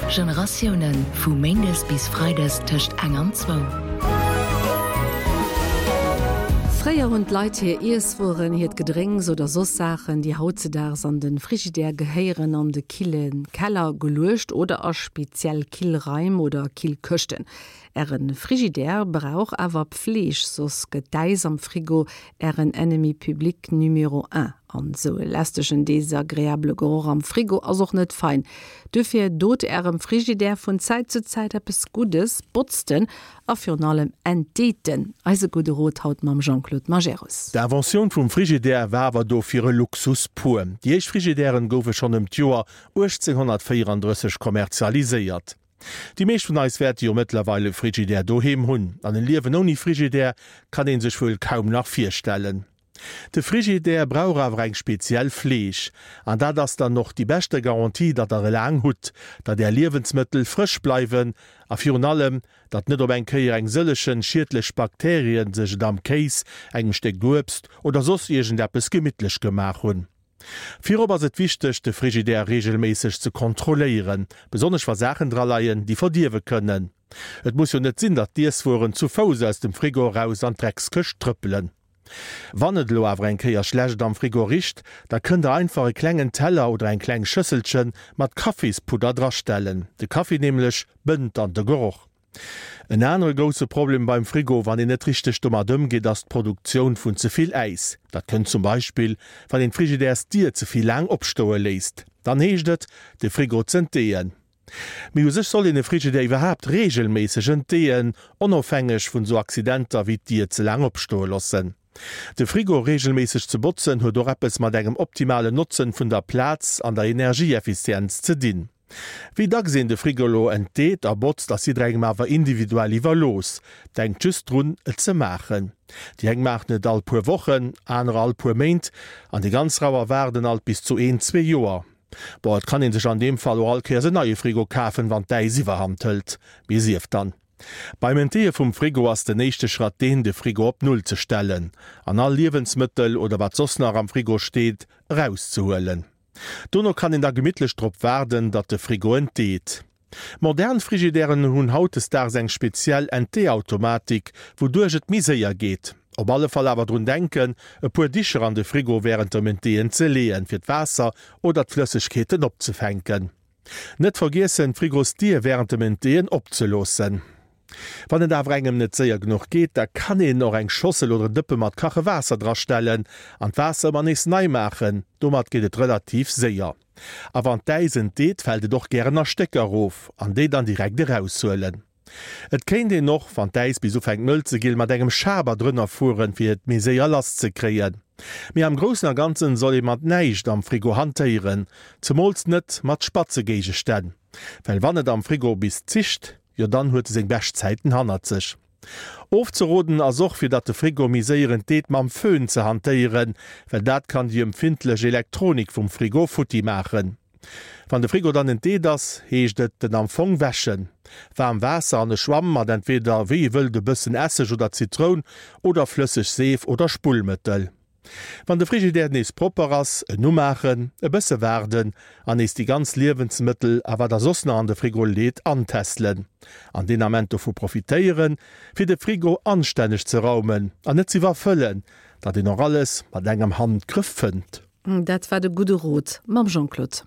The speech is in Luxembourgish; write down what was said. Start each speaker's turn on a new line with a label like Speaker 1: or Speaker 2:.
Speaker 1: Generatiounen, vu méindes bis freides tëscht eng an zwou.
Speaker 2: Fréier hunn d'Leit hir Iesswueren, hiert Gedrénks oder soss Saachen, déi hautzedaags an de Frigidaire gehéieren, an de kille Keller geluecht oder a speziell Killraim oder Killkëschten. Äre Frigidaire brauch awer Pfleeg, soss gëtt d'Äis am Frigo Ären Ennemi public numéro un. An sou e lästegen, desagreabele Geroch am Frigo ass och net fein. Duerfir dot Ärem Frigidaire vun Zäit zu Zäit eppes Guddes, botzt en a virun allem entdeet en. Eise gudde Rot haut mam Jean-Claude Majerus.
Speaker 3: D'Inventioun vum Frigidaire war awer dofir e Luxus pur. Déi éischt Frigidairen goufe schonn ëm d'Joer 1834 kommerzialiséiert. Déi meescht vun eis wäerte jo mëttlerweil e Frigidaire doheem hunn, an e Liewen ouni Frigidaire kann een sech wuel kaum nach virstellen. De Frigidaire brauch awer eng speziell Fleeg, an dat ass dann och déi beschte Garantie, datt der e laang hutt, datt är Liewensmëttel frësch bleiwen a virun allem, datt net op eng Kéier eng sëllechen schiedlech Bakterien sech et am Kéis, engem Stéck Uebst oder soss iergendeppes gemittlech gemaach hunn. Virop ass et wichteg, de Frigidaire reegelméisseg ze kontrolléieren, besonnesch wa Saachen dra leien, déi verdierwe kënnen. Et muss jo net sinn, datt d'Iesswueren zu Fouss aus dem Frigo eraus an d'Dreckskëscht trëppelen. Wann et elo awer eng Kéier schlecht am Frigo richt, da kënnt der einfach e klengen Teller oder eng kleng Schësselche mat Kaffispudder drastellen. De Kaffi nämlech bënnt dann de Geroch. En anere grousse Problem beim Frigo, wann een net richteg domat ëmgeet, ass d'Produktioun vun ze vill Äis. Dat kënnt zum Beispill, wann een d'Frigidärsdier ze vill laang opstoe léisst. Dann heescht et, de Frigo z'entdeeën. Mee u sech soll een e Frigidär iwwerhaapt reegelméisseg entdeeën, onofhängeg vun sou Accidenter wéi d'Dier ze laang opstoe loossen. De Frigo reegelméisseg ze botzen huet och eppes mat engem optimalen Notzen vun der Plaz an der Energieeffizienz ze dinn. Wéi dacks een de Frigo elo entdeet a botzt ass jidderengem awer individuell iwwerlooss. Denkt just drun et ze maachen. Déi eng maachen et all puer Wochen, anerer all puer Méint an déi ganz Rauer waarden alt bis zu een, zwee Joer. Bon, et kann een sech an deem Fall och all Kéiers en neie Frigo kafen, wann d'Äis iwwerhand hëlt. Mee sief dann. Beim Entdeeë vum Frigo ass den éischte Schratt deen, de Frigo op Null ze stellen an all Liewensmëttel oder wat soss nach am Frigo steet, erauszehuelen. Dono kann een da gemittlech drop waarden, datt de Frigo entdeet. Modern Frigidairen hunn hautdesdaags eng speziell Entdeeautomatik, wouduerch et méi séier geet. Op alle Fall awer drun denken, e puer Dicher an de Frigo wärend dem Entdeeën ze leeën, fir d'Waasser oder d'Flëssegkeeten opzefänken. Net vergiessen, d'Frigosdier wärend dem Entdeeën opzeloossen. Wann et awer engem net séier genuch geet, da kann een och eng Schossel oder en Dëppe mat kache Waasser drastellen an d'Waasser ëmmer nees nei maachen. Domat geet et relativ séier. A wann d'Äis entdeet, fält et och gären a Stécker erof an déi dann direkt eraushuelen. Et kéint een och, wann d'Äis bis ufänkt mëll ze ginn, mat engem Schaber drënner fueren, fir et méi séier lass ze kréien. Mee am Groussen a Ganzen soll ee mat näischt am Frigo hantéieren, zemools net mat spatze Géigestänn, well wann et am Frigo bis zischt, jo dann huet e seng bescht Zäiten hannert sech. Ofzeroden ass och, fir datt de Frigo méi séier entdeet, mam Föhn ze hantéieren, well dat kann déi empfindlech Elektronik vum Frigo futti maachen. Wann de Frigo dann entdeet ass, heescht et en am Fong wäschen. Waarm Waasser an e Schwamm mat entweder wéi ee wëllt e bëssen Esseg oder Zitroun oder flësseg Seef oder Spullmëttel. Wann de Frigidaire nees propper ass, en umaachen, e bësse waarden an nees déi ganz Liewensmëttel a wat der soss nach an de Frigo leet antestelen. An deen Ament dovu profitéieren, fir de Frigo anstänneg ze raumen an net z'iwwerfëllen, datt een och alles mat engem Handgrëff fënnt.
Speaker 2: Dat war de gudde Rot mam Jean-Claude.